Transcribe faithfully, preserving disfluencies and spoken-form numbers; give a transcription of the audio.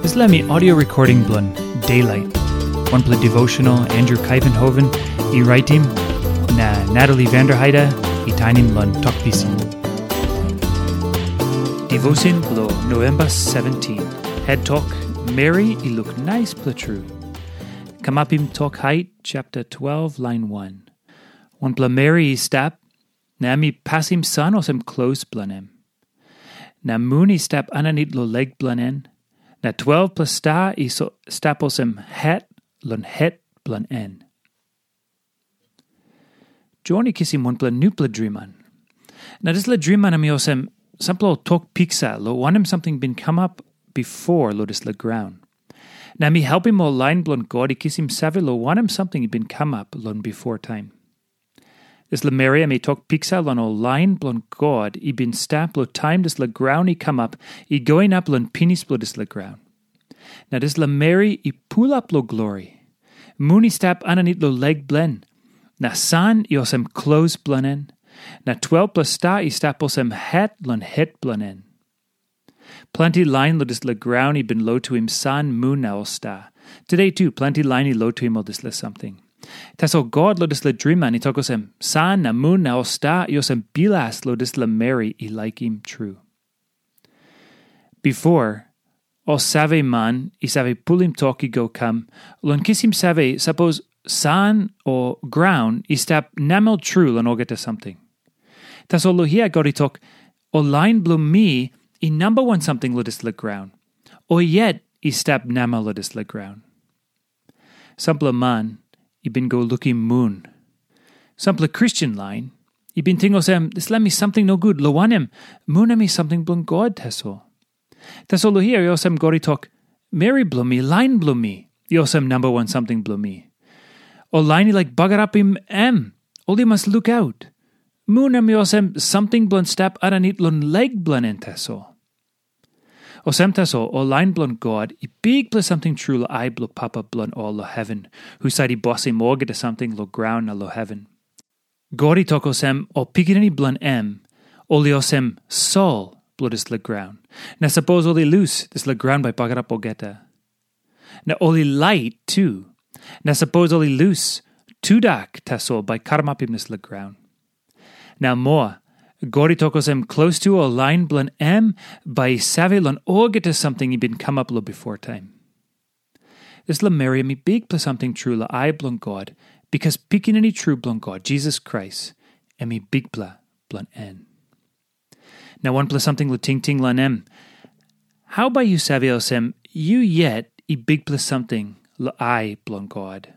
Dispela mi audio recording bilong Daylight. Wanpela devotional Andrew Kaivenhoven i raitim, na Natalie Vanderheide i tainim long Tok Pisin. Devotion bilong November seventeen. Head Tok, Meri i luk naispela tru. Kamapim Tok Hait, chapter twelve, line one. Wanpela meri i stap, na em i pasim san olsem klos bilong em. Na mun i stap aninit long lek bilong en, na twelvpela sta i so, stap olsem het long het bilong en. Jon i kisim wanpela nupela driman. Na dispela driman em i olsem sampela ol tok piksa long wanem samting bin kamap bipo long dispela graun. Na em i helpim ol lain bilong God i kisim save long wanem samting i bin kamap long bipo taim. Dispela meri em i tok piksa long ol lain bilong God i bin stap long taim dispela graun i kamap i go inap long pinis bilong dispela graun. Na dispela meri i pulap long glori. Mun i stap aninit long lek bilong en, na san i olsem klos bilong en, na twelvpela sta i stap olsem het long het bilong en. Planti lain long dispela graun i bin lotuim san, mun na ol sta. Tude tu, planti lain i lotuim ol dispela samting. Tasol God long dispela driman i tok olsem, san na mun na ol sta i olsem bilas long dispela meri i laikim tru. Bipo, ol save man i save pulim tok i go kam long kisim save sapos san o graun i stap namel tru long olgeta samting. Tasol long hia God i tok, ol lain bilong mi i namba wan samting long dispela graun, o yet i stap namel long dispela graun. Sampela man i bin go lukim mun. Sampela Kristen lain i bin ting olsem, dispela mi samting nogut, long wanem, mun em i samting bilong God tasol. Tasol long hia i olsem God i tok, meri bilong mi, lain bilong mi, i olsem namba wan samting bilong mi. Ol lain i laik bagarapim em, ol i mas lukaut. Mun em i olsem samting bilong stap aninit long lek bilong en tasol. Olsem tasol, ol lain bilong God i bikpela samting tru long ai bilong Papa bilong ol long heven, husat i bosim olgeta samting long graun na long heven. God i tok olsem, ol pikinini bilong em, ol i olsem sol bilong dispela graun. Na sapos ol i lus, dispela graun bai bagarap olgeta. Na ol i lait tu. Na sapos ol i lus, tudak tasol bai karamapim dispela graun. Na moa, God i tok olsem, klostu ol lain bilong em bai i save long olgeta samting i bin kamap long bipo taim. Dispela meri em i bikpela samting tru long ai bilong God, bikas Pikinini tru bilong God, Jisas Krais, em i Bikpela bilong en. Na wanpela samting long tingting long em, hau bai yu save olsem yu yet i bikpela samting long ai bilong God?